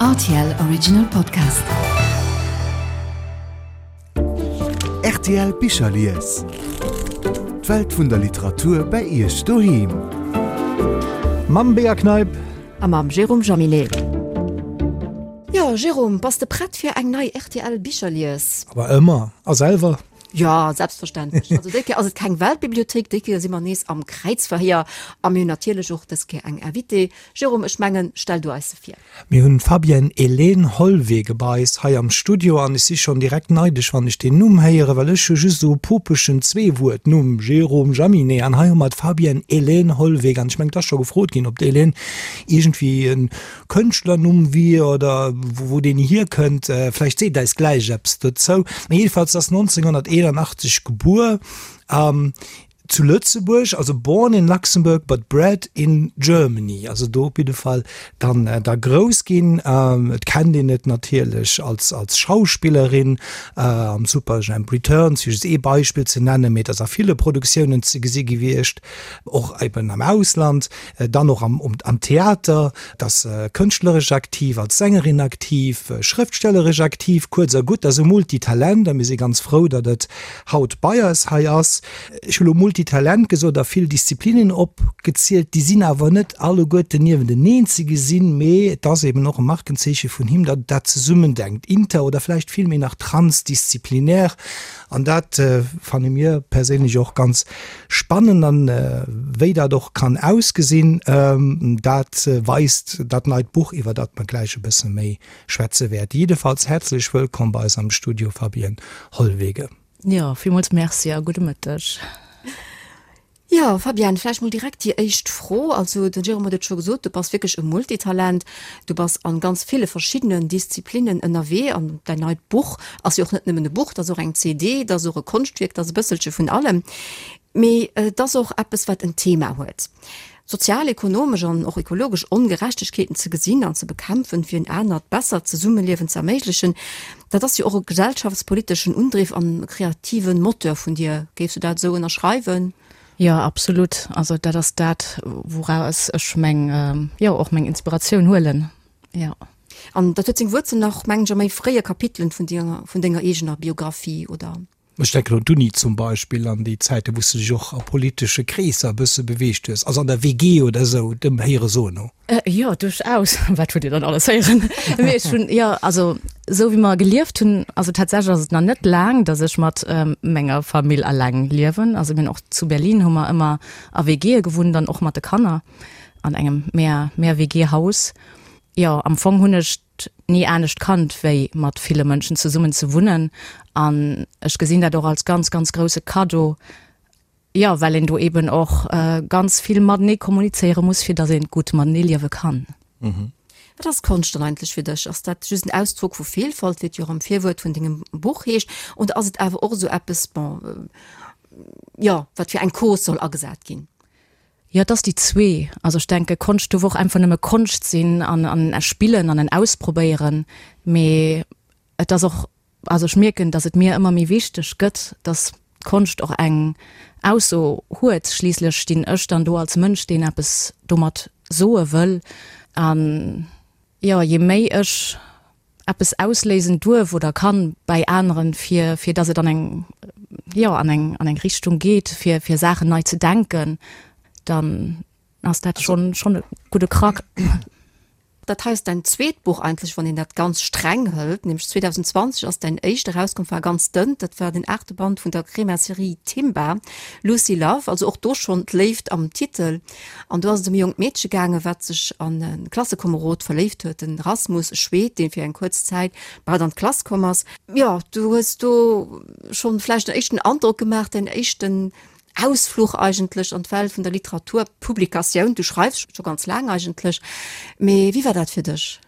Rtl Original Podcast. Rtl Bicherlies. D'Welt vun der Literatur bei Iech doheem. Mam Bea Kneip. A mam Jérôme Jaminet. Jo, Jérôme, bass de prett fir eng nei rtl Bicherlies? Awer ëmmer. A selwer? Jo, selbstverständlech. Also déi Kéier ass et keng Weltbibliothéik, déi Kéier si mer nees am Kräizverhéier a mir hunn natierlech och dës Kéier eng Invitée. Jérôme, ech mengen, stell du eis se vir. Mir hunn d'Fabienne Hélène Hollwege bei eis hei am Studio an ech si schonn direkt neidesch, wann ech deen Numm héieren, well ech hu just esou e popeschen Zweewuert-Numm, Jérôme Jaminet, an hei hu mer d'Fabienne Hélène Hollwege an ech mengen, et ass scho gefrot ginn, ob d'Hélène iergendwéi e Kënschtlernumm wier oder wou deen hierkënnt. Vläicht seet eis gläich eppes dozou. Mee jedenfalls ass 1981 gebuer zu Lëtzebuerg, also born in Luxembourg but bred in Germany, also do op jidde Fall dann da grouss ginn. Et kennt een et natierlech als als Schauspillerin am Superjhemp Returns, fir just ee Beispill ze nennen, mee et ass a ville Produktiounen ze gesi gewiescht, och eben am Ausland. Dann och am am Theater, et ass kënschtleresch aktiv, als Sängerin aktiv, schrëftstelleresch aktiv, kuerz a gutt, ass e Multitalent a mir si ganz frou, datt et haut bei eis hei ass. Ech hu lo Multitalent gesot a vill Disziplinen opgezielt, déi sinn awer net alleguerten niewenteneen ze gesinn, mee et ass eben och e Markenzeeche vun him, datt et dat zesummendenkt, inter oder vläicht villméi nach transdisziplinär. An dat fanne mir perséinlech och ganz spannend. An wéi dat och kann ausgesinn, dat weist dat neit Buch, iwwer dat mer gläich e bësse méi schwätze wäerte. Jiddefalls häerzlech wëllkomm bei eis am Studio, Fabienne Hollwege. Jo, villmools Merci a gudde Mëtteg. Jo, Fabienne, vläicht mol direkt déi éischt Fro. Also den Jérôme huet et scho gesot, du bass wierklech e Multitalent. Du bass an ganz ville verschiddenen Disziplinnen ënnerwee an däin neit Buch ass jo och net nëmmen e Buch, dat ass och eng CD, dat ass och e Konschtwierk, dat ass e bësselche vun allem. Mee et ass och eppes, wat en Thema huet. Sozial, ekonomesch an och ekologesch Ongerechtegkeeten ze gesinn an ze bekämpfen, fir en anert, bessert Zesummeliewen ze erméiglechen, dat ass jo och e gesellschaftspoliteschen Undriff an e kreative Moteur vun dir. Géifs du dat esou ënnerschreiwen? Jo, absolut. Also dat ass dat, wouraus ech meng, jo, och meng Inspiratioun huelen, jo. An dat huet seng Wuerzel nach, mengen ech, a méi fréie Kapitelen vun denger, vun denger eegener Biographie, oder? Ech denken un d'Uni zum Beispill an déi Zäiten, wou s de dech och a politesche Kreesser e bësse beweegt hues, also an der WG oder esou, dem Héiere soen no. Jo, duerchaus. Wat hutt Dir dann alles héieren? Mee ech hunn, jo, also esou wéi mer gelieft hunn, also tatsächlech ass et nach net laang, datt ech mat menger Famill alleng liewen. Also mir hunn och zu Berlin hu mer ëmmer a WGe gewunnt an och mat de Kanner an engem Mehr, Mehr-WG-Haus. Jo, am Fong hunn ech ni anescht kannt, wéi mat ville Mënschen zesummen ze wunnen. An ech gesinn dat och als ganz, ganz grousse Kaddo, jo, well een do eben och ganz vill matenee kommunizéiere muss, fir datt een gutt matenee liewe kann. Wat ass Konscht dann eigentlech fir dech? Ass dat just en Ausdrock vu Vielfalt, wéi et jo och am Virwuert vun dengem Buch heescht, oder ass et awer och esou eppes, bon, jo, wat fir eng Cause soll agesat ginn? Jo, et ass déi zwee. Also ech denke Konscht duerf och einfach nëmme Konscht sinn an an e Spillen an en Ausprobéieren. Mee et ass och, also ech mierken, datt et mir ëmmer méi wichteg gëtt, datt d'Konscht och eng Ausso huet. Schliisslech stinn ech dann do als Mënsch, deen eppes domat soe wëll. An jo, je méi ech eppes ausléisen duerf oder kann bäi aneren, fir fir dass et an eng, jo, an eng an eng Richtung geet, fir fir Saachen nei ze denken, dann ass dat schonn schonn e gudde Krack. Dat hei ass däin zweet Buch eigentlech, wann een dat ganz streng hëlt, nämlech 2020 ass däin éischt erauskomm, war ganz dënn, dat war den aachte Band vun der Crema-Serie Timba, Lucy Love, also och do schonn d'Léift am Titel. An do ass et ëm e jonkt Meedche gaangen, wat sech an e Klassekomerod verléift huet, den Rasmus, e Schweed, dee fir eng kuerz Zäit bei hatt an d'Klass komm ass. Jo, du hues do schonn vläicht en éischten Androck gemaach, däin éischten Ausfluch eigentlech an d'Welt vun der Literaturpublikatioun. Du schreifs scho ganz laang eigentlech, mee wéi war dat fir dech?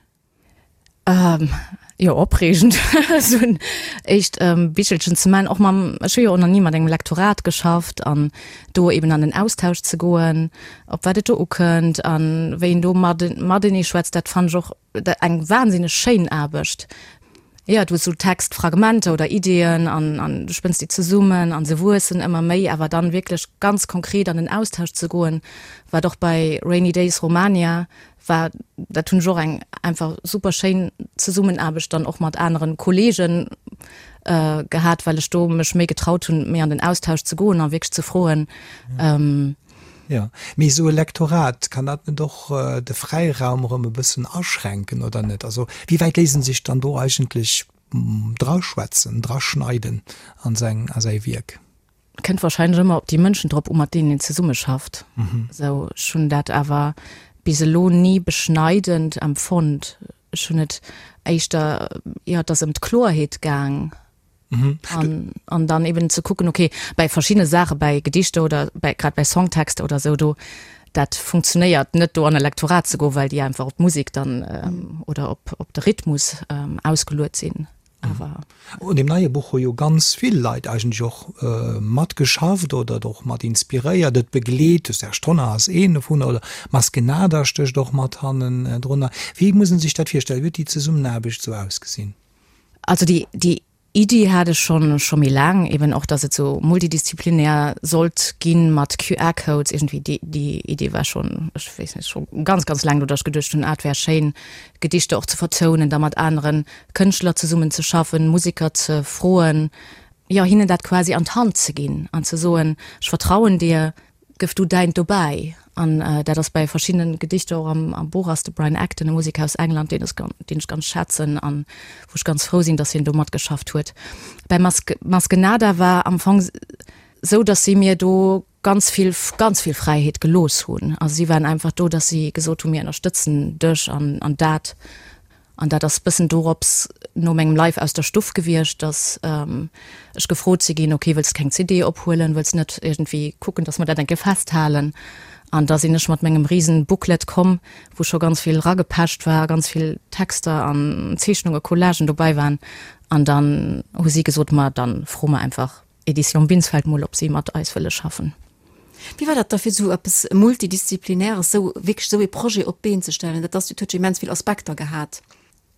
Jo, opreegend, esou en éischt Bichelchen ze man, och mam, ech hu jo och nach ni mat engem Lektorat geschafft an do eben an den Austausch ze goen, op wat et do ukënnt an wéi een do matenee schwätzt, dat fannen ech och eng wahnsinneg schéin Aarbecht. Jo, du hues sou Textfragmenter oder Ideeën an an du spënns déi zesummen an se wuessen ëmmer méi, awer dann wierklech ganz konkret an den Austausch ze goen, wat och bei Rainy Days Romania war, dat hunn ech och eng einfach super schéin Zesummenaarbecht dann och mat aneren Kollegen gehat, well ech do mech méi getraut hunn, méi an den Austausch ze goen a wierklech ze froen. Jo, mee esou e Lektorat, kann dat net och de Fräiraum erëm e bëssen aschränken, oder net? Also wéi wäit léisst en sech dann do eigentlech draschwätzen, draschneiden an seng, a säi Wierk? Kënnt wahrscheinlech ëmmer op déi Mënschen drop u mat deenen een zesummeschafft. Esou, ech hunn dat awer bis elo ni beschneidend empfonnt. Ech hunn et éischter, jo, et ass ëm d'Kloerheet gaang. An, an dann eben ze kucken, okay, bei verschiddene Saache, bei Gedichter oder bei, grad bei Songtexter oder sou, do, dat funktionéiert net do an e Lektorat ze goen, well déi einfach op d'Musek dann oder op, op de Rhythmus ausgeluet sinn. Awer. Un deem neie Buch hu jo ganz vill Leit eigentlech och matgeschafft oder et och mat inspiréiert, et begleet. De Serge Tonnar ass een dovunner oder Maskenada stécht och mat hannendrunner. Wéi muss ee sech dat virstellen? Wéi huet déi Zesummenaarbecht esou ausgesinn? Also déi, déi Iddi hat ech schonn, scho méi laang, eben och, dass et sou multidisziplinär sollt ginn mat QR-Codes iergendwéi. Déi, déi Idee war schonn, ech weess net, scho ganz, ganz laang do, dass ech geduecht hunn, ah, et wär schéin, Gedichter och ze vertounen, da mat anere Kënschtler zesummen ze schaffen, Museker ze froen, jo, hinnen dat quasi an d'Hand ze ginn an ze soen, ech vertrauen dir, Gëff du däint dobäi. An dat ass bäi verschiddenen Gedichter och am Buch ass de Brian Acton, e Museker aus England, deen ech deen ech ganz schätzen an wou ech ganz frou sinn, datt hien do matgeschafft huet. Bäi Maske Maskenada war am Fong sou, datt si mir do ganz vill ganz vill Fräiheet gelooss hunn. Also si waren einfach do, datt si gesot hunn, mir ënnerstëtzen dech an an dat. An dat ass bëssen dorops no mengem Live aus der Stuff gewiescht, dass ech gefrot si ginn, ok, wëlls de keng CD ophuelen, wëlls net iergendwéi kucken, dass mer dat eng Kéier festhalen? An da sinn ech mat mengem risen Booklet komm, wou scho ganz vill ragepecht war, ganz vill Texter an Zeechnunge, Collagen dobäi waren. An dann hu si gesot, ma dann fro mer einfach Edition Binsfeld mol, ob si mat eis wëlle schaffen. Wéi war dat da fir esou eppes Multidisziplinäres, esou wierklech esou ee Projet op d'Been ze stellen? Dat ass, dat huet jo immens vill Aspekter gehat.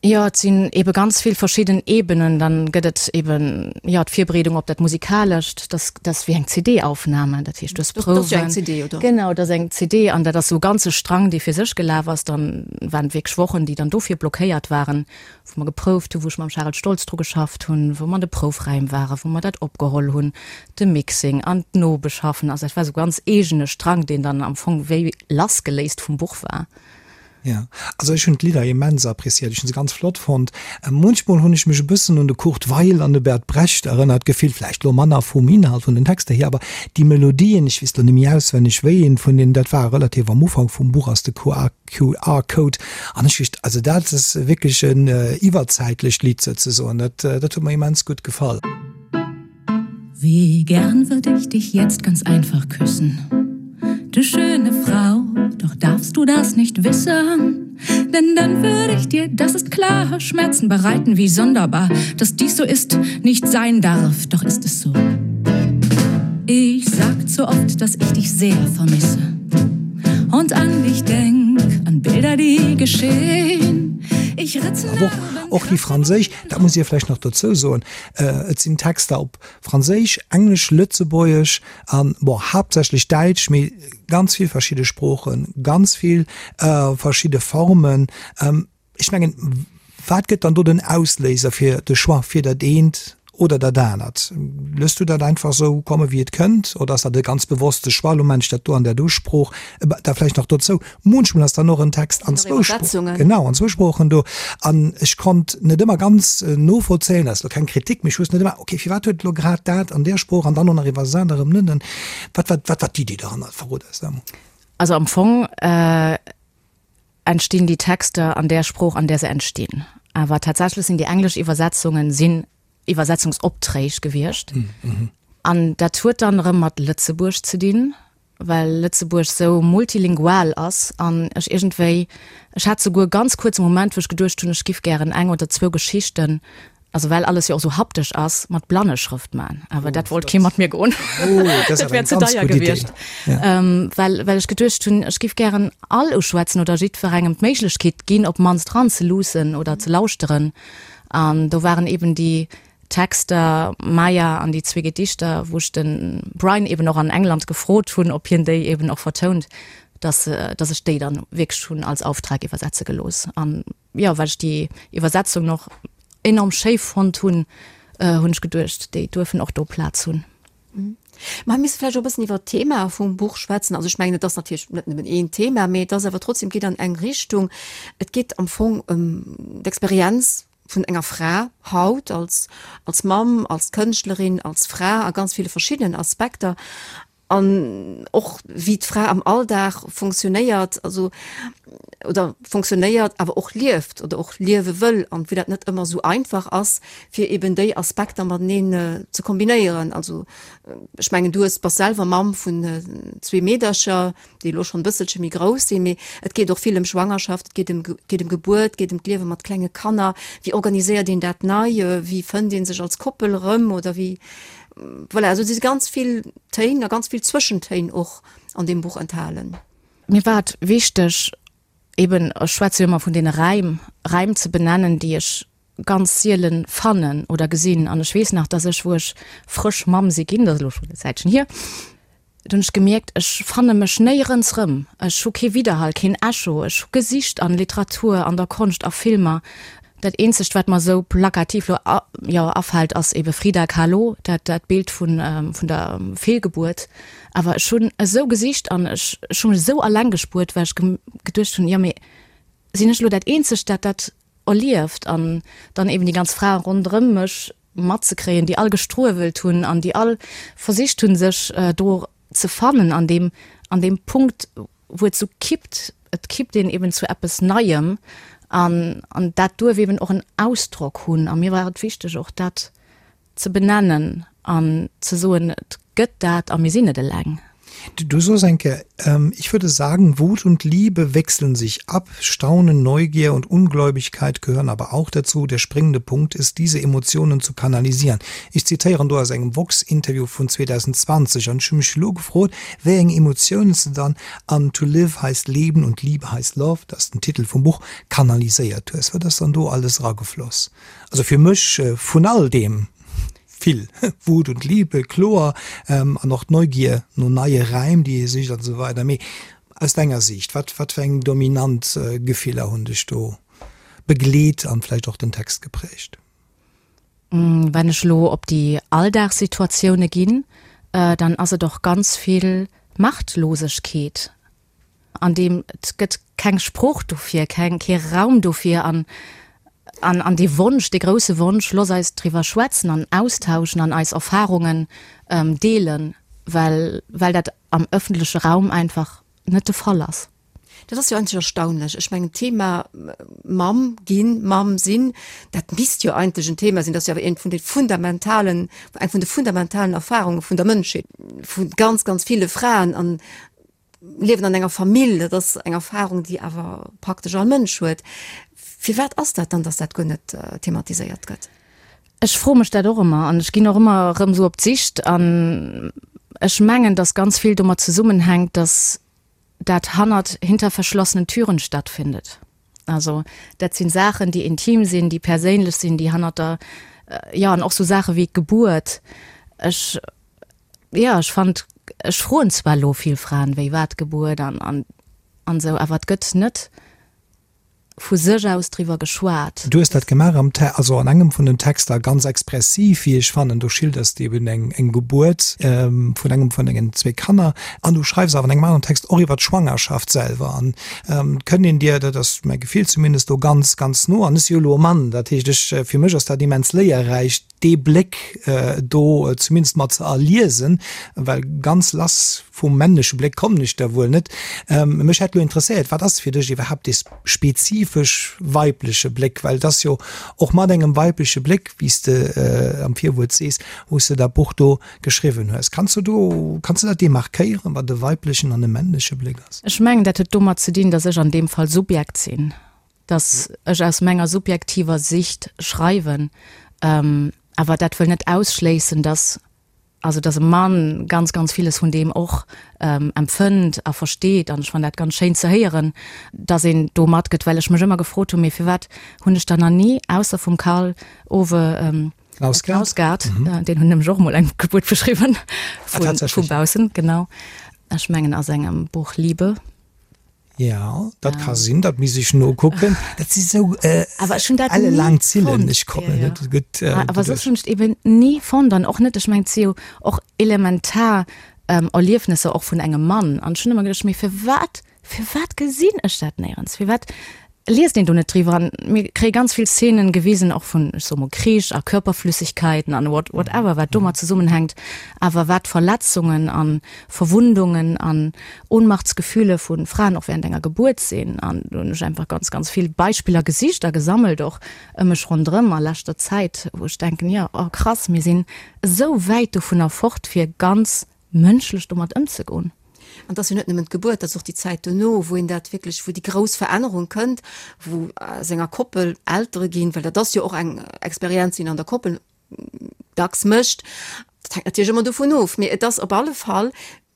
Jo, et sinn ebe ganz vill verschidden Ebenen. Dann gëtt et eben, jo, d'Virbereedung op dat Musikalescht, dat dat ass wéi eng CD-Aufnahme, dat heescht, du hues Prouwen. Dat ass jo eng CD, oder? Genau, dat ass eng CD an dat ass esou e ganze Strang, dee fir sech gelaf ass. Dann waren et wierklech Wochen, déi dann dofir blockéiert waren, wou mer geprouft hunn, wou ech mam Charel Stoltz dru geschafft hunn, wou mer an de Proufräim waren, wou mer dat opgeholl hunn, de Mixing an d'Nobeschaffen. Also dat war esou ganz eegene Strang, deen dann am Fong wéi lassgeléist vum Buch war. Jo, also ech hunn d'Lidder immens appréciéiert, ech hunn se ganz flott fonnt. Munchmol hunn ech mech e bëssen un de Kurt Weill an de Bert Brecht erënnert gefillt, vläicht elo manner vum Inhalt, vun den Texter hier, awer déi Melodien, ech weess elo net méi auswenneg, wéi een vun deenen dat war, relativ am Ufank vum Buch ass de QR-Code an ech wéisst, also dat ass wierklech en iwwerzäitlecht Lidd souzesoen, dat dat huet mer immens gutt gefall. Wie gern würd ich dich jetzt ganz einfach küssen, du schöne Frau, doch darfst du das nicht wissen, denn dann würd ich dir, das ist klar, Schmerzen bereiten, wie sonderbar, dass dies so ist, nicht sein darf, doch ist es so. Ich sag zu oft, dass ich dich sehr vermisse und an dich denk, an Bilder, die geschehen. Ich ritze Aber och, och déi franséisch, dat muss ee vläicht nach dozou soen, et sinn Texter op Franséisch, Englesch, Lëtzebuergesch an, bon, haaptsächlech Däitsch, mee ganz vill verschidde Sproochen, ganz vill verschidde Formen. Ech mengen, wat gëtt dann do den Ausléiser fir de Choix fir dat eent oder dat anert? Looss du dat einfach esou komme wéi et kënnt oder ass dat e ganz bewosste Choix, elo maan ech dat do an där do Sprooch? Da vläicht nach dozou, munchmol ass dann och en Text an zwou Sproochen, genau, an zwou Sproochen do an ech konnt net ëmmer ganz novollzéien, dat ass elo keng Kritik, mee ech wousst net ëmmer, okay, firwat huet elo grad dat an där Sprooch an dann och nach iwwersat erëm net? Wat war, wat war d'Iddi dohannert? Verrot eis dat emol. Also am Fong entstinn déi Texter an där Sprooch, an där se entstinn. Awer tatsächlech sinn déi englesch Iwwersetzungen sinn Iwwersetzungsopträg gewiescht. An dat huet dann erëm mat Lëtzebuerg ze dinn, well Lëtzebuerg sou multilingual ass an ech iergendwéi, ech hat souguer ganz kuerz e Moment, wou ech geduecht hunn, ech giff gären eng oder zwou Geschichten Also well alles jo och sou haptesch ass, mat Blanneschrëft man. Awer dat wollt kee mat mir goen. Oh, dat wär ze deier gewiescht. Well, well ech geduecht hunn, ech giff gären all uschwätzen oder jiddwerengem d'Méiglechkeet ginn, op d'mannst ranzeluussen oder ze lauschteren. An do waren eben déi Texter, Maya an déi zwee Gedichter, wou ech de Brian eben och an England gefrot hunn, ob hien déi eben och vertount, dass, dass ech déi dann wierklech hunn als Auftrag iwwersetze gelooss. An jo, well ech déi Iwwersetzung och enorm schéi fonnt hunn, hunn ech geduecht, déi duerfen och do Plaz hunn. Mä mir misse vläicht och e bëssen iwwert d'Thema vum Buch schwätzen. Also ech mengen, et ass natierlech net nëmmen een Thema, mee et ass awer trotzdem, geet an eng Richtung. Et geet am Fong ëm d'Experienz vun enger Fra haut als, als Mamm, als Kënschtlerin, als Fra a ganz ville verschiddenen Aspekter. An och wéi d'Fra am Alldag funktionéiert, also oder funktionéiert, awer och lieft oder och liewe wëll an wéi dat net ëmmer esou einfach ass, fir eben déi Aspekter mateneen ze kombinéieren. Also ech mengen, du hues, bass selwer Mamm vun zwee Meedercher, déi elo schonn e bësselche méi grouss sinn, mee et geet och vill ëm Schwangerschaft, et geet ëm, geet ëm Gebuert, et geet ëm d'Liewe mat klenge Kanner. Wéi organiséiert een dat nei? Wéi fënnt ee sech als Koppel erëm oder wéi, voilà, also et si ganz vill Téin a ganz vill Zwëschentéin och an deem Buch enthalen. Mir war et wichteg, eben, ech schwätze jo ëmmer vun deene Räim, Räim ze benennen, déi ech ganz sielen fannen oder gesinn. An ech weess nach, dass ech, wou ech frësch Mamm si ginn, dat ass elo schonn e Zäitchen hier, do hunn ech gemierkt, ech fanne mech néierens rëm. Ech hu kee Widderhall, keen Echo. Ech hu gesicht an Literatur, an der Konscht, a Filmer. Dat eenzegt, wat mer esou plakativ elo, jo, afält, ass ebe Frida Kahlo, dat, dat Bild vun, vun der Feelgebuert. Awer ech hunn esou gesicht an ech, ech hu mech esou alleng gespuert, well ech geduecht hunn, jo, mee sinn ech elo dat eenzegt, dat dat erlieft? An dann eben déi ganz Frae ronderëm mech matzekréien, déi all gestruewelt hunn an déi all versicht hunn, sech do ze fannen an deem, an deem Punkt, wou et sou kippt, et kippt een eben zu eppes Neiem an, an dat duerf eben och en Ausdrock hunn. A mir war et wichteg och dat ze benennen an ze soen, et gëtt dat a mir sinn net eleng. Du soos eng Kéier, Ich würde sagen, Wut und Liebe wechseln sich ab, Staunen, Neugier und Ungläubigkeit gehören aber auch dazu. Der springende Punkt ist, diese Emotionen zu kanalisieren. Ech zitéieren do aus engem Vox-Interview vun 2020 an ech hu mech elo gefrot, wéi eng Emotiounen s de dann an To live heißt leben und Liebe heißt love, dat ass den Titel vum Buch, kanaliséiert hues. Wat ass dann do alles eragefloss? Also fir mech vun all deem vill Wut und Liebe, kloer, an och d'Neugier no neie Räim, déi ee sicht an esou weider. Mee aus denger Siicht, wat wat fir eng dominant Gefiller hunn dech do begleet an vläicht och den Text geprägt? Wenn ech elo op déi Alldagssituatioune ginn, dann ass et och ganz vill Machtlosegkeet. An deem et gëtt keng Sprooch dofir, keng, kee Raum dofir an, an, an dee Wonsch, dee grousse Wonsch, looss eis driwwer schwätzen an austauschen an eis Erfarungen deelen, well, well dat am ëffentleche Raum einfach net de Fall ass. Dat ass jo eigentlech erstaunlech. Ech mengen, d'Thema Mamm ginn, Mamm sinn, dat misst jo eigentlech en Thema sinn, dat ass jo awer eent vun de fundamentalen, eng vun de fundamentalen Erfarunge vun der Mënschheet, vu ganz, ganz ville Fraen. An Liewen an enger Famill, dat ass eng Erfahrung, déi awer praktesch all Mënsch huet. Firwat ass dat dann, dass dat guer net thematiséiert gëtt? Ech froe mech dat och ëmmer an ech ginn och ëmmer erëm esou op d'Sicht an ech mengen, dass ganz vill domat zesummenhänkt, dass dat hannert, hinter verschlossenen Türen stattfindet. Also dat sinn Saachen, déi intim sinn, déi perséinlech sinn, déi hannert der, jo an och sou Saache wéi d'Gebuert. Ech Jo, ech fand, ech froen zwar elo vill Fraen, wéi war d'Gebuert an an an esou, awer et gëtt net vu sech aus driwwer geschwat. Du hues dat gemaach am Te, also an engem vun den Texter, ganz expressiv, wéi ech fannen. Do schilders de eben eng eng Gebuert vun engem vun dengen zwee Kanner an du schreifs awer an engem aneren Text och iwwer d'Schwangerschaft selwer an et kënnt een dir, dat ass mäi Gefill zumindest, do ganz, ganz no an. Ech si jo elo e Mann, dat heescht ech, fir mech ass dat immens léierräich, dee Bléck do zumindest mat ze erliesen, well ganz lass vum männleche Bléck kommen ech da wuel net. Mech hätt elo interesséiert, wat ass fir dech iwwerhaapt dee spezifesch weibleche Bléck? Well et ass jo och mat engem weibleche Bléck, wéi s de am Virwuert sees, wou s de dat Buch do geschriwwen hues. Kanns du do, kanns du dat demarkéieren, wat e weiblechen an e männleche Bléck ass? Ech mengen, dat huet domat ze dinn, datt ech an deem Fall Subjekt sinn. dass ech aus menger subjektiver Sicht schreiwen, awer dat wëll net ausschléissen, dass. also dass e Mann ganz, ganz villes vun deem och empfënnt a versteet an ech fannen dat ganz schéin ze héieren, dass een do matgëtt, well ech mech ëmmer gefrot hunn, mee firwat hunn ech dann nach ni, ausser vum Karl Ove Knausgard, deen hunn nämlech och emol eng Gebuert beschriwwen, vu baussen, genau, ech mengen a sengem Buch Liebe. Ja, dat ka sinn, dat misst ech nokucken. Dat si sou elle laang Zillen, ech kommen net gutt duerch. Awer soss hunn ech et eben ni fonnt an och net, ech mengen et si jo och elementar Erliefnesser och vun engem Mann an ech hunn ëmmer geduecht, mee firwat, firwat gesinn ech dat néierens, firwat liest een do net driwwer an mir kréie ganz vill Szenen gewisen och vun, ech soe mol, Krich a Körperflüssigkeiten an what, whatever, wat domat zesummenhänkt, awer wat Verletzungen an Verwundungen an Ohnmachtsgefühle vu Fraen och während enger Gebuert sinn. An do hunn ech einfach ganz, ganz vill Beispiller gesicht a gesammelt och ëm mech ronderëm a leschter Zäit, wou ech denken, jo, oh krass, mir sinn esou wäit dovunner fort fir ganz mënschlech domat ëmzegoen. An et ass jo net nëmmen d'Gebuert, et ass och déi Zäit dono, wou een dat wierklech, wou déi grouss Verännerung kënnt, wou aus enger Koppel Eltere ginn, well dat ass jo och eng Experienz, déi een an der Koppel dacks mécht. Dat hänkt natierlech ëmmer dovun of, mee et ass op alle Fall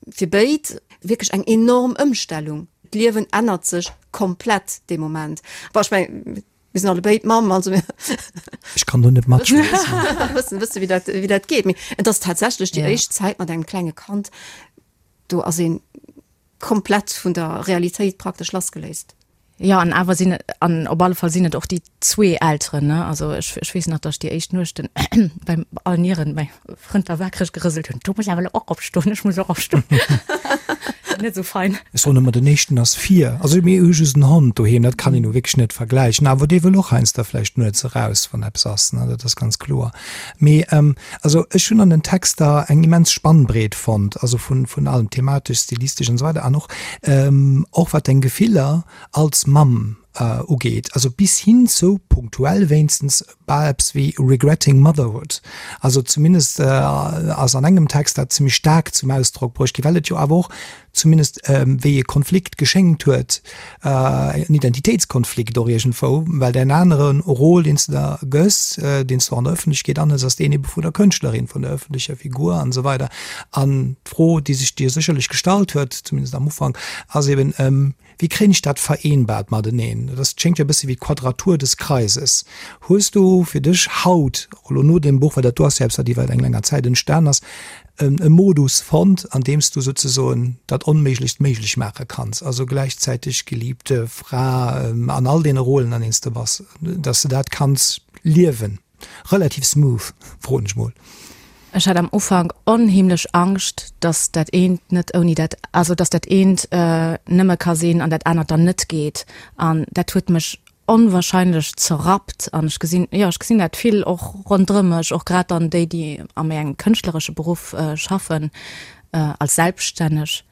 fir béid wierklech eng enorm Ëmstellung. D'Liewen ännert sech komplett dee Moment. Bon, ech mengen, Mir sinn allebéid Mamm, also mir. Ech kann do net matschwätzen. Wëssen, wësse wéi dat, wéi dat geet. Mee et ass tatsächlech déi éischt Zäit mat engem klenge Kand, do ass ee komplett vun der Realitéit praktesch lassgeléist. Jo, an awer sinn et, an op alle Fall sinn et och déi zwee Elteren, ne? Also ech, ech weess nach, datt ech déi éischt Nuechten beim allen Nieren mäi Frënd war wakereg gerëselt hunn, Du muss awer elo och opstoen, ech muss och opstoen. Net esou fein. Ech soen ëmmer, den éischten ass vir. Also mir hu just en Hond doheem, dat kann een nu wierklech net vergläichen. Awer dee wëll och heiansdo vläicht nuets eraus, wann eppes ass, ne, dat ass ganz kloer. Mee also ech hunn an den Texter eng immens Spannbreet fonnt, also vun vun allem, thematesch, stilistesch an esou weider an och och wat deng Gefiller als Mamm ugeet, also bis hin zu, punktuell wéinstens, bal eppes wéi Regretting Motherhood. Also zumindest ass an engem Text dat zimmlech staark zum Ausdrock bruecht ginn, well et jo awer och zumindest wéi e Konflikt geschéngt huet, en Identitéitskonflikt och iergendwou, well däin anere Rôle, deen s de da gëss, deen s de och an der Ëffentlechkeet anhëls, ass deen ebe vun der Kënschtlerin, vun der ëffentlecher Figur an esou weider. An d'Fro, déi sech dir sécherlech gestallt huet, zumindest am Ufank, ass eben, Wéi kréien ech dat vereenbart mateneen? Dat ass, schéngt jo e bësse wéi d'Quadratur des Kreises. Hues du fir dech haut, och elo no deem Buch, well dat do ass jo eppes, wat iwwer eng länger Zäit entstan ass, e Modus fonnt, an deem s du souzesoen dat Onméiglechst méiglech maache kanns, also gläichzäiteg Geliebte, Fra an all deene Rôlen, an deenen s de bass, dass s de dat kanns liewen? Relativ smooth, froen ech mol. Ech hat am Ufank onheemlech Angscht, dass dat eent net ouni dat, also dass dat eent nëmme ka sinn an dat anert dann net geet. An dat huet mech onwahrscheinlech zerrappt. An ech gesinn, jo, ech gesinn dat vill och ronderëm mech, och grad dann déi, déi a méi engem kënschtleresche Beruff schaffen, als Selbststänneg,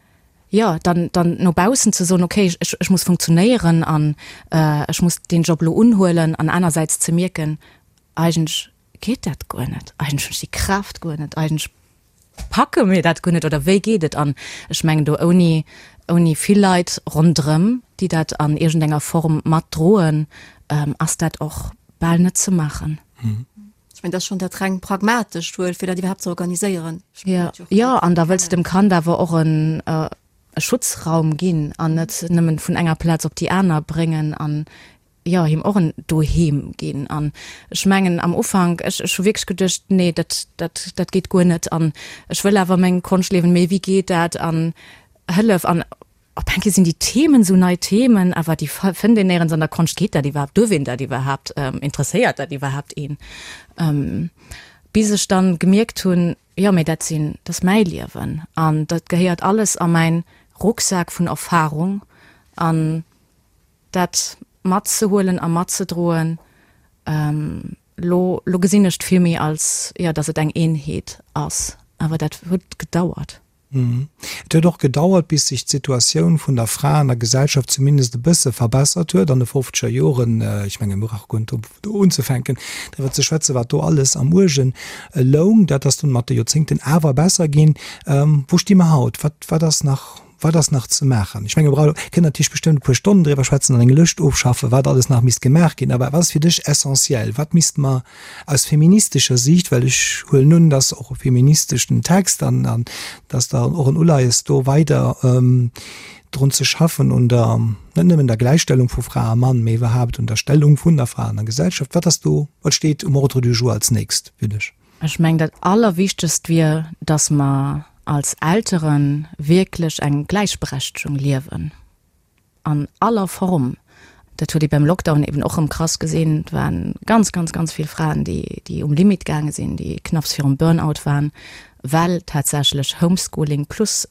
jo, dann, dann no baussen ze soen, okay, ech, ech muss funktionéieren an ech muss deen Job elo unhuelen an anersäits ze mierken, eigentlech geet dat guer net, eigentlech hunn ech déi Kraaft guer net, eigentlech packe mir dat guer net oder wéi geet et? An ech mengen do ouni, ouni vill Leit ronderëm, déi dat an iergendenger Form matdroen, ass dat och bal net ze maachen. Ech mengen, dat ass schonn dat reng Pragmatescht wuel, fir dat iwwerhaapt ze organiséieren. Jo, jo, an da wëlls de dem Kand awer och en e Schutzraum ginn an net nëmmen vun enger Plaz op déi aner bréngen an, jo, him och en Doheem ginn. An ech mengen am Ufank, ech ech hu wierklech geduecht, nee, dat dat dat geet guer net an ech wëll awer meng Konscht liewen, mee wéi geet dat an Hëllef an Op eng Kéier sinn déi Themen esou nei Themen, awer déi fënnt een néierens an der Konscht. Geet dat iwwerhaapt? Duerf een dat iwwerhaapt? Interesséiert dat iwwerhaapt een? Bis ech dann gemierkt hunn, jo, mee dat sinn, dat ass mäi Liewen an dat gehéiert alles a mäin Rucksak vun Erfahrung an dat matzehuelen a matzedroen, lo, lo gesinn ech et vill méi als, jo, datt et eng Eenheet ass. Awer dat huet gedauert. Et huet och gedauert, bis sech d'Situatioun vun der Fra an der Gesellschaft zumindest e bësse verbessert huet an de fofzeger Joren. Ech menge mir brauche guer net do unzefänken, driwwer ze schwätzen, wat do alles am Uerge loung. Dat ass dunn mat de Joerzéngten awer besser ginn. Wou sti mer haut? Wat, wat ass nach? Wat ass nach ze maachen? Ech menge mir kënnen natierlech bestëmmt e puer Stonnen driwwer schwätzen an eng Lëscht ofschaffen, wat alles nach misst gemaach ginn. Awer wat ass fir dech essentiell? Wat misst mer aus feministescher Siicht, well ech huelen un, dass och e feministeschen Text an an dass da och en Uleies do weider drun ze schaffen un der, net nëmmen der Gläichstellung vu Fra a Mann, mee iwwerhaapt un der Stellung vun der Fra an der Gesellschaft. Wat ass do, wat steet um Ordre du jour als nächst fir dech? Ech mengen, dat Allerwichtegst wier, dass mer als Eltere wierklech eng Gläichberechtegung liewen, an aller Form. Dat huet ee beim Lockdown eben och erëm krass gesinn. Et waren ganz, ganz, ganz vill Fraen, déi, déi um Limit gaange sinn, déi knapps virum Burnout waren, well tatsächlech Homeschooling plus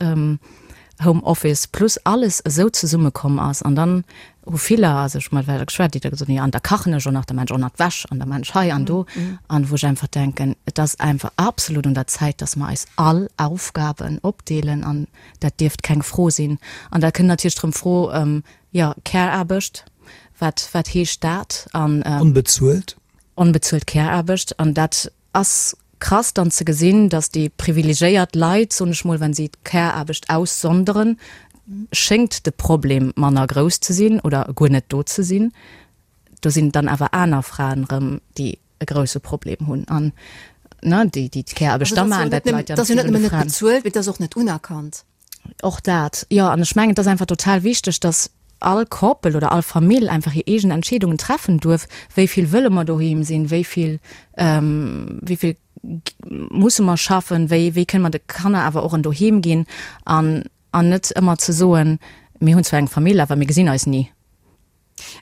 Home Office plus alles esou zesummekomm ass. An dann hu viller, also ech hu mat weider geschwat, déi da gesot hunn, jo an da kachen ech och nach, da maan ech och nach d'Wäsch an da maan ech hei an do. An wou ech einfach denken, et ass einfach absolut un der Zäit, dass mer eis all Aufgaben opdeelen an dat dierft keng Fro sinn. An da kënnt natierlech erëm d'Fro, jo Care-Aarbecht, wat wat heescht dat? An. Onbezuelt. Onbezuelt Care-Aarbecht an dat Ass krass dann ze gesinn, dass déi privilegéiert Leit, soen ech mol, wenn si d'Care-Aarbecht aussonderen, schéngt de Problem manner grouss ze sinn oder guer net do ze sinn. Do sinn dann awer aner Fraen erëm, déi e grousse Problem hunn an, ne, déi déi d'Care-Aarbecht da maachen. Dat leit ja net nëmmen net bezuelt, mee et ass och net unerkannt. Och dat, jo. An ech mengen, et ass einfach total wichteg, dass all Koppel oder all Famill einfach hir eegen Entscheedungen treffen duerf, wéi vill wëlle mer doheem sinn, wéi vill, wéi vill musse mer schaffen, wéi, wéi kënne mer de Kanner awer och en Doheem ginn an, an net ëmmer ze soen, mir hunn zwar eng Famill, awer mir gesinn eis ni.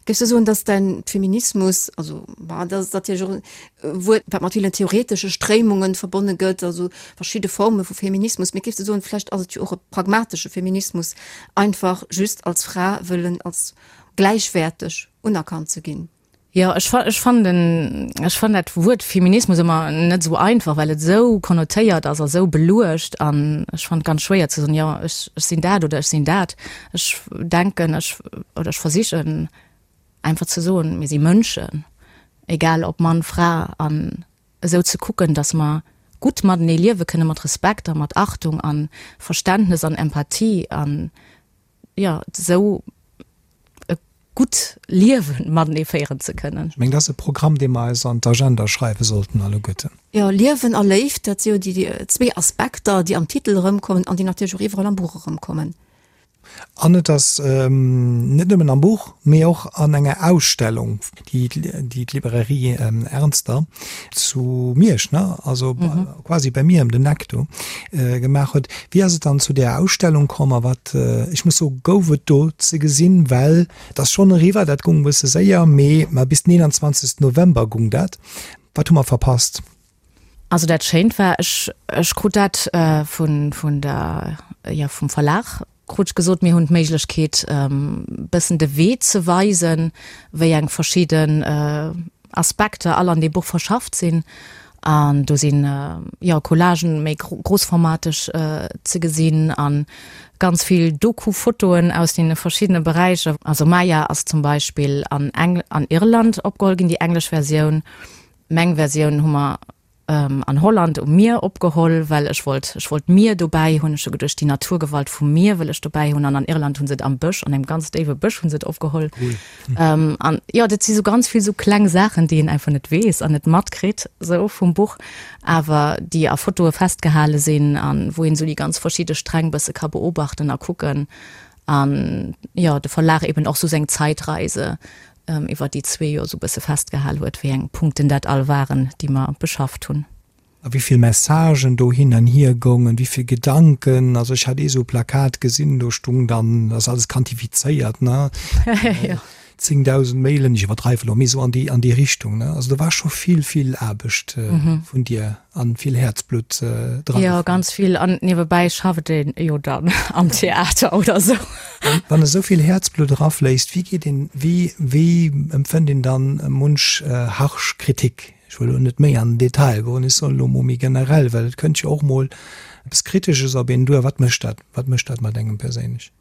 Géifs du soen, dass däin Feminismus, also bah, dat ass natierlech och e Wuert, wat mat villen theoretesche Stréimungen verbonne gëtt, also verschidde Forme vu Feminismus, mee géifs du soen, vläicht ass et jo och e pragmatesche Feminismus, einfach just als Fra wëllen als gläichwäerteg unerkannt ze ginn? Jo, ech fa ech fannen den, ech fannen dat Wuert Feminismus ëmmer net esou einfach, well et esou konnotéiert ass a esou beluecht an ech fannen et ganz schwéier ze soen, jo ech ech sinn dat oder ech sinn dat. Ech denken, ech oder ech versichen einfach ze soen, mir si Mënschen, egal ob Mann, Fra, an esou ze kucken, datt mer gutt matenee liewe kënne mat Respekt a mat Achtung a Verständnes an Empathie an, jo, esou e gutt Liewe matenee féieren ze kënnen. Ech mengen, dat ass e Programm, dee mer eis an d'Agenda schreiwe sollten alleguerten. Jo, Liewen a Léift, dat si jo déi zwee Aspekter, déi am Titel erëmkommen an déi natierlech och iwwerall am Buch erëmkommen. An et ass net nëmmen am Buch, mee och an enger Ausstellung, déi d'Librairie Ernster zu Miersch, ne, also quasi bei mir ëm den Eck do, gemaach huet. Wéi ass et dann zu där Ausstellung komm a wat, ech muss soen, gouf et do ze gesinn? Well et ass schonn eriwwer, dat gung e bësse séier, mee ma bis den 21 November gung dat. Wat hu mer verpasst? Also dat Schéint war, ech, ech krut dat vun, vun der, jo, vum Verlag krut ech gesot, mir hunn d'Méiglechkeet bëssen de Wee ze weisen, wéi eng verschidden Aspekter all an deem Buch verschafft sinn. An do sinn, jo, Collagen méi grossformateg ze gesinn a ganz vill Doku-Fotoen aus deene verschiddene Beräicher. Also Maya ass zum Beispill an Engl-, an Irland opgeholl ginn, déi englesch Versioun. Meng Versioun hu mer an Holland um Mier opgeholl, well ech wollt, ech wollt d'Mier dobäi hunn. Ech hu geduecht, déi Naturgewalt vum Mier wëll ech dobäi hunn. An an Irland hu se et am Bësch, an engem ganz déiwe Bësch hu se et opgeholl. Cool. An jo, dat si sou ganz vill sou kleng Saachen, déi een einfach net weess an net matkritt sou vum Buch, awer déi a Fotoe festgehale sinn an wou een sou déi ganz verschidde Sträng bësse ka beobachten a kucken. An jo, de Verlag eben och sou seng Zeitreise iwwer déi zwee Joer esou bësse festgehal huet, wéi eng Punkten dat all waren, déi mer beschafft hunn. A wéi vill Messagen do hin an hier goungen, wéi vill Gedanken. Also ech hat ee sou Plakat gesinn, do stung dann, dat ass alles quantifizéiert, ne, 10.000 Mailen, ech iwwerdreiwe lo, mee esou an déi, an déi Richtung, ne. Also do war scho vill, vill Aarbecht vun dir. An vill Häerzblutt dran. Jo, ganz vill. An niewebäi schafft een jo dann am Theater oder sou. Wann esou vill Häerzblutt erafléisst, wéi geet een, wéi, wéi empfënnt een dann munch harsch Kritik? Ech wëll elo net méi an den Detail goen, ech soen elo mol méi generell, well et kënnt jo och mol eppes Kritesches op een duer. Wat mécht dat, wat mécht dat mat engem perséinlech?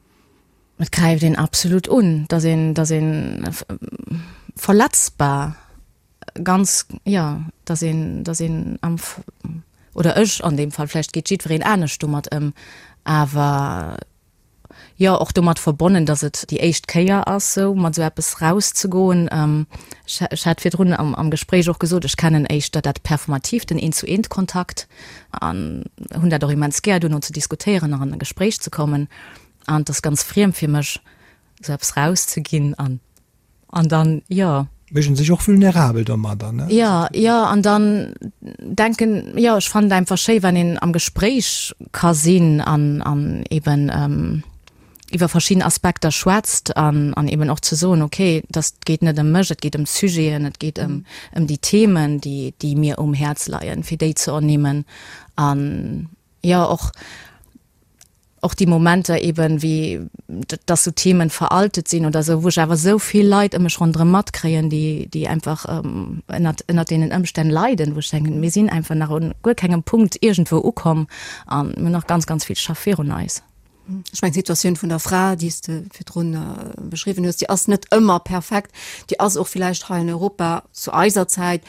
Et gräift een absolut un, dass een, dass een verletzbar ganz, jo, dass een, dass een am, oder ech an deem Fall, vläicht geet jiddwereen anescht domat ëm, awer. jo, och domat verbonnen, dass et déi éischt Kéier ass, sou mat sou eppes rauszegoen. Ech, ech hat virdrun am, am Gespréich och gesot, ech kennen éischter dat Performativt, den Eent-zu-eent-Kontakt an hunn dat och immens gär, duerno ze diskutéieren an an e Gespréich ze kommen. An et ass ganz friem fir mech, sou eppes rauszeginn an An dann, jo. Mécht en sech och vulnerabel domadder, ne? Jo, jo, an dann denken, jo, ech fannen et einfach schéi, wann een am Gespréich ka sinn an, an eben iwwer verschidden Aspekter schwätzt an, an eben och ze soen, okay, dass et geet net ëm mech, et geet ëm d'Sujeten, et geet ëm, ëm déi Themen, déi, déi mir um Häerz leien, fir déi ze ernimmen an, jo, och, och déi Momenter eben, wéi dass sou Themen veraltet sinn oder sou, wou ech awer sou vill Leit ëm mech ronderëm matkréien, déi, déi einfach ënnert, ënnert deenen Ëmstänn leiden, wou ech denken, mir sinn einfach nach un guer kengem Punkt iergendwou ukomm an mir hunn nach ganz, ganz vill Schaff virun eis. Ech mengen, d'Situatioun vun der Fra, déi s de virdrun beschriwwen hues, déi ass net ëmmer perfekt. Déi ass och villäicht hei an Europa zu eiser Zäit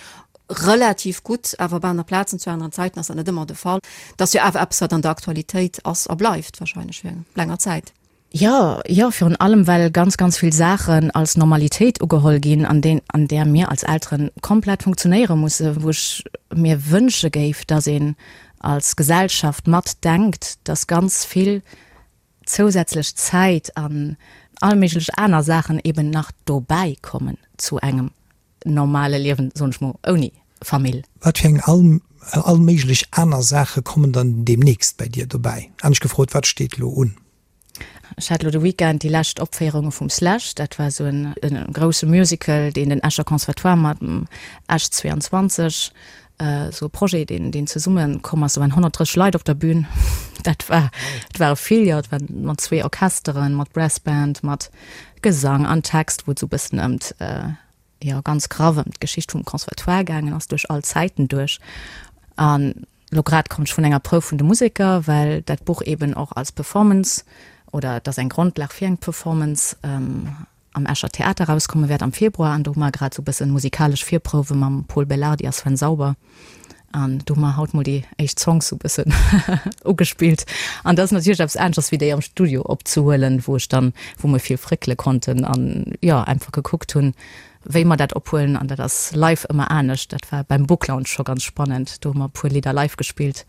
Relativ gutt, awer op aner Plazen zu aneren Zäiten ass dat net ëmmer de Fall. Dat ass jo awer eppes, wat an der Aktualitéit ass a bleift wahrscheinlech fir eng länger Zäit. Jo, jo, virun allem well ganz, ganz vill Saachen als Normalitéit ugeholl ginn, an deen, an där mir als Eltere komplett funktionéiere musse, wou ech mir wënsche géif, dass een als Gesellschaft matdenkt, dass ganz vill zousätzlech Zäit an all méiglech aner Saachen eben nach dobäi kommen zu engem normale Liewen, soen ech mol, ouni Famill. Wat fir eng all all méiglech aner Saache kommen dann deemnächst bäi dir dobäi? Anescht gefrot, wat steet elo un? Ech hat elo de Weekend déi lescht Opféierunge vum Slash. Dat war esou en grousse Musical, deen den Escher Conservatoire mat dem Esch 22, esou e Projet, deen deen zesumme komm ass. Do waren 130 Leit op der Bühn. Dat war, et ware vill, jo. Et war mat zwee Orchesteren, mat Brass Band, mat Gesang an Text, wou et esou e bëssen ëm jo ganz graff ëm d'Geschicht vum Conservatoire gaangen ass, duerch all Zäiten duerch. An elo grad komm ech vun enger Prouf vun de Museker, well dat Buch eben och als Performance, oder et ass eng Grondlag fir eng Performance, am Escher Theater erauskomme wäert am Februar. An do hu mer grad esou e bëssen musikalesch Virprouwe mam Pol Belardi a Sven Sauber. An do hu mer haut mol déi éischt Songs sou bëssen ugespillt. An dat ass natierlech eppes aneschters wéi déi am Studio opzehuelen, wou ech dann, wou mer vill fréckele konnten an jo einfach gekuckt hunn, wéi mer dat ophuelen. An dat ass live ëmmer anescht. Dat war beim Book Lounge scho ganz spannend. Do hu mer e puer Lidder live gespillt.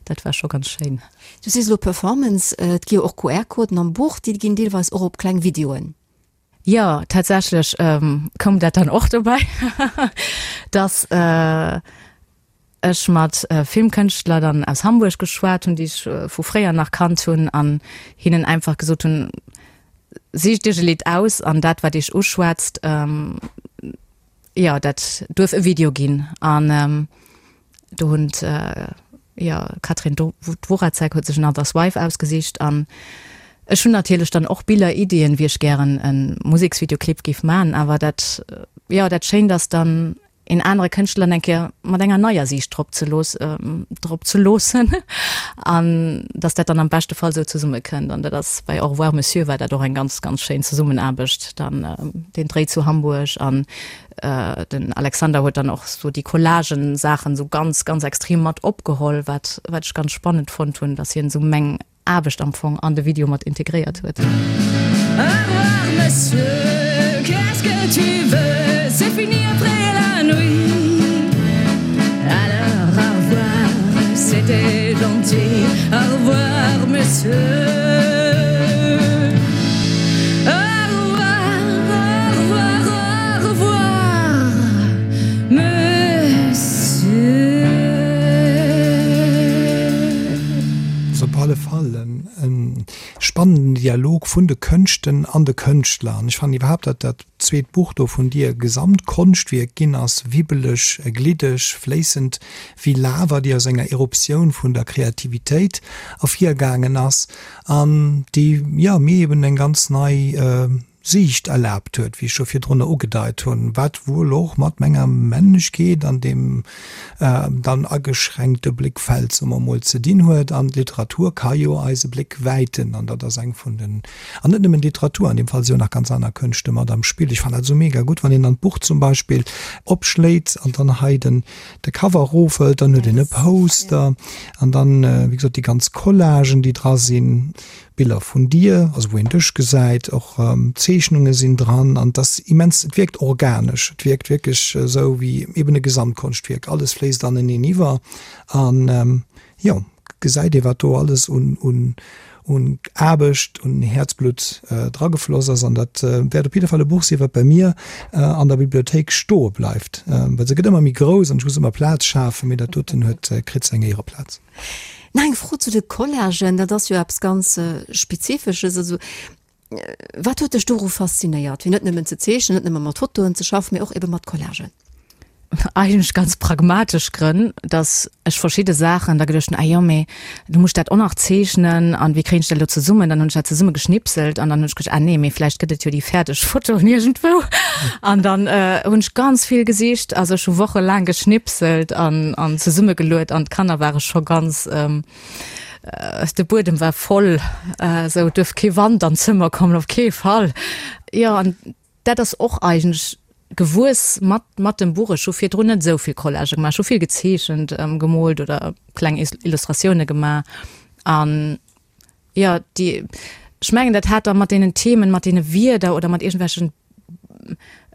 Dat war scho ganz schéin. Du sees elo Performance. Et gi jo och QR-Coden am Buch, déi ginn deelweis och op kleng Videoen. Jo, tatsächlech koum dat dann och dobäi, dass ech mat Filmkënschtler dann aus Hamburg geschwat hunn, déi ech vu fréier nach kannt hunn an hinnen einfach gesot hunn, Sicht Iech e Lidd aus an dat, wat Iech uschwätzt, jo, dat duerf e Video ginn. An Do hunn jo Katrin Dworatzek huet sech Another's Wife ausgesicht an ech hunn natierlech dann och Biller, Iddien, wéi ech gären e Museksvideoclip géif man, awer dat jo dat Schéint ass dann een anere Kënschtler eng Kéier mat enger neier Siicht drop ze looss drop ze loossen an dass dat dann am beschte Fall sou zesumme kënnt an dat ass bei Au revoir Monsieur war dat och eng ganz ganz schéin Zesummenaarbecht dann den Dréi zu Hamburg an Den Alexander huet dann och sou déi Collagen-Saachen sou ganz, ganz extrem mat opgeholl, wat, wat ech ganz spannend fonnt hunn, dass hien sou meng Aarbecht am Fong an de Video mat integréiert huet. Au revoir monsieur, qu'est-ce que tu veux, c'est fini après la nuit Alors au revoir, c'était gentil, au revoir monsieur. Ass op alle Fall e spannenden Dialog vun de Kënschten an de Kënschtler. An ech fannen iwwerhaapt, datt dat zweet Buch do vun dir e Gesamtkonschtwierk ginn ass, wibbeleg, gliddeg, fléissend wéi Lava, déi aus enger Eruptioun vun der Kreativitéit ervirgaangen ass. An déi, jo, mir eben eng ganz nei Siicht erlaabt huet, wéi ech scho virdrunner ugedeit hunn, wat wuel och mat menger Männlechkeet an deem dann ageschränkte Blickfeld, soe mer emol, ze dinn huet. An d'Literatur ka jo eise Bléck wäiten, an dat ass eng vun den, an net nëmmen d'Literatur, an deem Fall si jo nach ganz aner Kënschte mat am Spill. Ech fannen dat esou mega gutt, wann een dann d'Buch zum Beispill opschléit an dann hei den de Cover erofhëlt, dann huet een e Poster an dann, wéi gesot, déi ganz Collagen, déi dra sinn. Biller vun dir, also wou een dech gesäit, och Zeechnunge sinn dran an et ass immens, et wierkt organesch, et wierkt wierklech esou wéi eben e Gesamtkonschtwierk, alles fléisst aneneen iwwer an jo, gesäit ee wat do alles un un un Aarbecht, un Häerzblutt dragefloss ass an dat wäert op jidde Fall e Buch sinn, wat bei mir an der Bibliothéik stoe bleift, well se gëtt ëmmer méi grouss an ech muss ëmmer Plaz schafen, mee dat doten huet kritt seng Éiereplaz. Nach eng Fro zu de Collagen, dat ass jo eppes ganz Spezifesches. Also wat huet dech doru faszinéiert, fir net nëmmen ze zeechnen, net nëmme mat Fotoen ze schaffen, mee och ebe mat Collagen? Eigentlech ganz pragmatesch Grënn, datt ech verschidde Saachen da geduecht hunn, ah jo, mee du muss dat och nach zeechnen an wéi kréien ech dat elo zesummen? Dann hunn ech dat zesumme geschnipselt an dann hunn ech geduecht, ah nee, mee vläicht gëtt et jo déi fäerdeg Fotoen iergendwou. An dann hunn ech ganz vill gesicht, also ech hu wochelaang geschnipselt an an zesummegeluet an d'Kanner ware scho ganz, de Buedem war voll, esou et duerf kee Wand an d'Zëmmer kommen, op kee Fall. Jo, an dat ass och eigentlech gewuess mat mat dem Buch. Ech hu virdrun net esou vill Collagë gemaach, ech hu vill gezeechent, gemoolt oder kleng Illustratioune gemaach an Jo, déi, ech mengen, dat hat da mat deenen Themen, mat deene Wierder oder mat iergendwelchen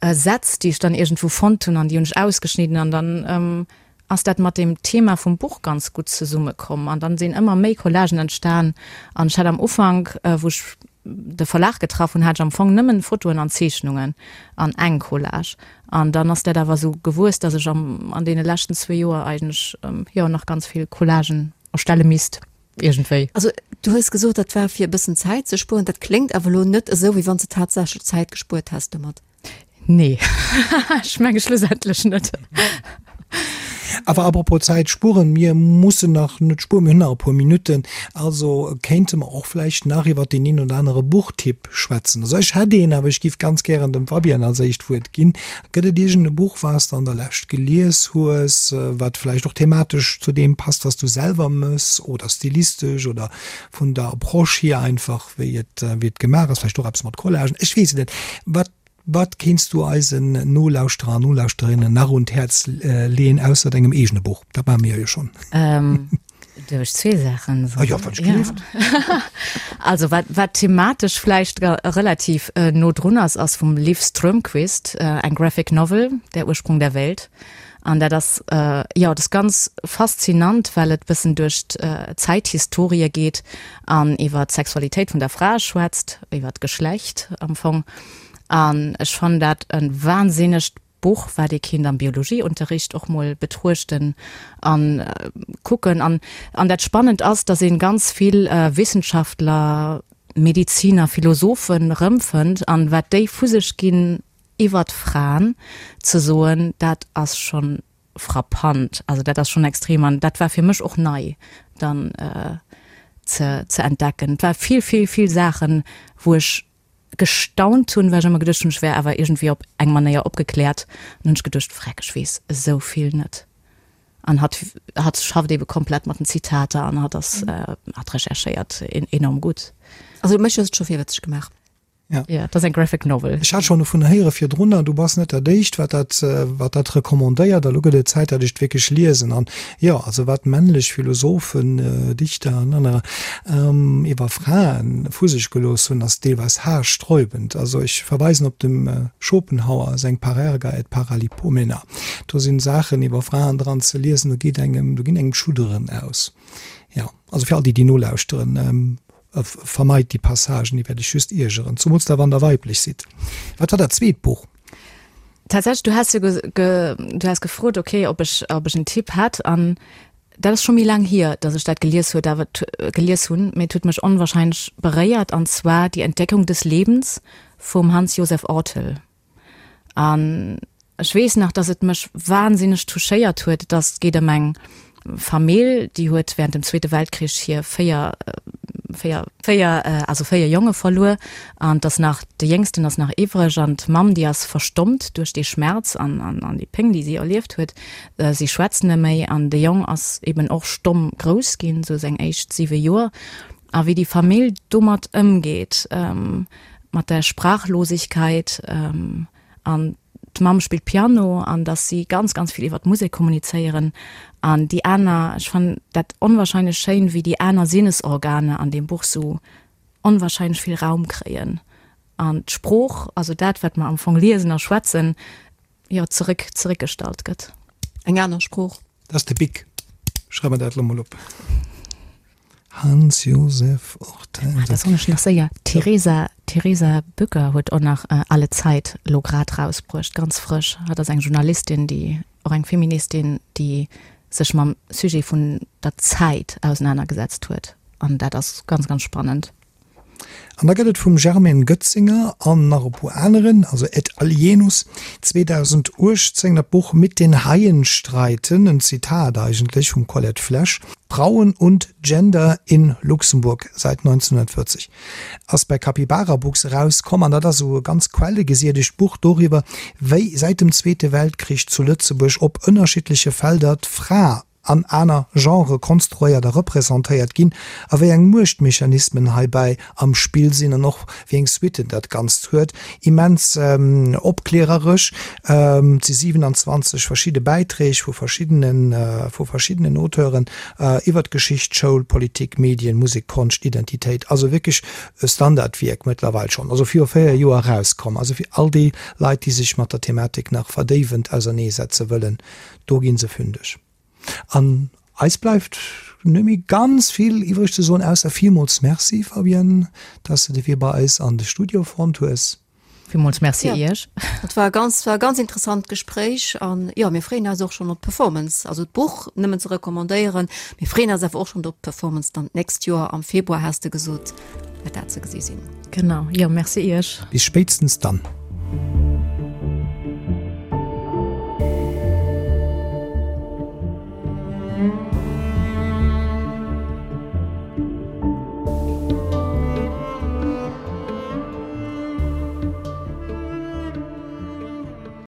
Sätz, déi ech dann iergendwou fonnt hunn an déi hunn ech ausgeschnidden an dann ass dat mat deem Thema vum Buch ganz gutt zesummekomm an dann sinn ëmmer méi Collagen entstan an ech hat am Ufank, wou ech de Verlag getraff hunn, hat ech am Fong nëmmen Fotoen an Zeechnungen an eng Collage an dann ass dat awer esou gewuess, dass ech am an deene leschten zwee Joer eigentlech, jo, nach ganz vill Collagen erstelle misst. Iergendwéi. Also, du hues gesot, dat war fir e bëssen Zäit ze spueren. Dat kléngt awer elo net esou, wéi wann s de tatsächlech Zäit gespuert häss domat. Nee, ech menge schlussendlech net. Awer apropos Zäit spueren, mir mussen nach net spueren, mir hunn nach e puer Minutten, also kéinte mer och vläicht nach iwwer deen een oder anere Buchtipp schwätzen. Also ech hätt een, awer ech géif ganz gären dem Fabienne als éischt d'Wuert ginn. Gëtt et iergend e Buch, wat s de an der Lescht gelies hues, wat vläicht och thematesch zu deem passt, wat s du selwer mëss, oder stilistesch oder vun der Approche hier einfach, wéi et, wéi et gemaach ass, vläicht och eppes mat Collagen, ech weess et net. Wat, wat kéints du eisen Nolauschterer an Nolauschterinnen nach un d'Häerz leeën, ausser dengem eegene Buch? Dat maache mir jo schonn. Duerf ech zwee Saachen soen? Ah jo, wann ech gelift. Also wat, wat thematesch vläicht relativ no drun ass, ass vum Liv Strömquist eng Graphic Novel, Der Ursprung der Welt. An dat ass, jo, dat ass ganz faszinant, well et bëssen duerch d'Zäithistorie geet an iwwer d'Sexualitéit vun der Fra schwätzt, iwwer d'Geschlecht am Fong. An ech fannen dat e wahnsinnegt Buch, wat ee kinnt am Biologieunterricht och mol betruechten an kucken. An an dat Spannend ass, dass een ganz vill Wissenschaftler, Mediziner, Philosophen rëmfënnt an wat déi vu sech ginn iwwert Fraen ze soen, dat ass schonn frappant. Also dat ass schonn extrem an dat war fir mech och nei dann ze ze entdecken. Et war vill, vill, vill Saachen, wou ech gestaunt hunn, well ech ëmmer geduecht hunn, ech wär awer iergendwéi op eng Manéier opgekläert. An hunn ech geduecht, Vreck, ech weess esou vill net. An hatt, hatt schafft eebe komplett mat den Zitater an hatt ass, hatt recherchéiert enorm gutt. Also mech hues et scho virwëtzeg gemaach. Ja. Ja, dat ass eng Graphic Novel. Ech hat schonn dovun héiere virdrunner, du bass net dat éischt, wat dat, wat dat recommandéiert. A lo gëtt et Zäit, datt ech et wierklech liesen. An jo, also wat männlech Philosophen, Dichter an anerer iwwer Frae vu sech gelooss hunn, ass deelweis haarsträubend. Also ech verweisen op dem Schopenhauer seng Parerga et Paralipomena. Do sinn Saachen iwwer Fraen dran ze liesen, do geet engem, do ginn engem d'Schudderen aus. Jo, also fir all déi, déi nolauschteren, vermeit déi Passagen, déi wäert iech just iergeren, zumools da wann der weiblech sidd. Wat war dat zweet Buch? Tatsächlech, du has jo du has gefrot, okay, ob ech, ob ech en Tipp hätt an dat ass scho méi laang hier, datt ech dat gelies huet, awer gelies hunn, mee et huet mech onwahrscheinlech beréiert an zwar Die Entdeckung des Lebens vum Hans Josef Orthel. An ech weess nach, dass et mech wahnsinneg touchéiert huet. Et ass, geet ëm eng Famill, déi huet während dem Zweete Weltkrich hir véier, véier, véier, also véier Jonge verluer. An et ass nach, de Jéngsten ass nach iwwreg. An d'Mamm, déi ass verstommt duerch dee Schmerz an, an, an déi Péng, déi si erlieft huet. Si schwätzt net méi. An de Jong ass eben och stomm grouss ginn, sou seng éischt siwe Joer. A wéi déi Famill domat ëmgeet, mat der Sprachlosigkeit an d'Mamm spillt Piano an dass si ganz, ganz vill iwwer d'Musek kommunizéieren an déi aner, ech fannen dat onwahrscheinlech schéin, wéi déi aner Sinnesorgane an deem Buch sou. onwahrscheinlech vill Raum kréien an d'Sprooch, also dat wat mer am Fong liesen a schwätzen, jo zeréck zeréckgestallt gëtt. Eng aner Sprooch. Dat ass de Bic. Schreif mer dat elo mol op. Hans Josef Ortels. Ah, da soen ech nach séier, d'Theresa, d'Theresa Bücker huet och nach Alle Zeit elo grad rausbruecht, ganz frësch. Hatt ass eng Journalistin, déi, och eng Feministin, déi sech mam Sujet vun der Zäit ausenanergesetzt huet. An dat ass ganz, ganz spannend. An da gëtt et vum Germaine Goetzinger an nach e puer aneren, also et alienus, 2018 dat Buch Mit den Haien streiten, en Zitat eigentlech vum Colette Flesch, Frauen und Gender in Luxemburg seit 1940 ass bei Capybara Books erauskomm an dat ass esou e ganz quellegesiedegt Buch doriwwer, wéi säit dem Zweete Weltkrich zu Lëtzebuerg op ënnerschiddleche Felder d'Fra an aner Genrë konstruéiert a representéiert ginn a wéi eng Muechtmechanismen heibäi am Spill sinn an och wéi eng Suitten dat Ganzt huet. Immens opkläreresch. Et si 27 verschidde Bäiträg vu verschiddene vu verschiddenen Auteuren iwwer d'Geschicht, Schoul, Politik, Medien, Musek, Konscht, Identitéit. Also wierklech e Standardwierk mëttlerweil schonn, also viru 4 Joer erauskomm. Also fir all déi Leit, déi sech mat der Thematik nach verdéiwend auserneesetze wëllen, Do ginn se fündeg. An eis bleift net méi ganz vill iwwreg ze soen, ausser villmools Merci, Fabienne, dass de de Wee bei eis an de Studio fonnt hues. Villmools Merci Iech. Et war e ganz, war e ganz interessant Gespréich an jo, mir freeën eis och schonn op d'Performance. Also d'Buch nëmmen ze recommandéieren, mir freeën eis awer och schonn op d'Performance dann d'nächst Joer am Februar, has de gesot, wäert dat ze gesi sinn. Genau, jo, Merci Iech. Bis spéitstens dann.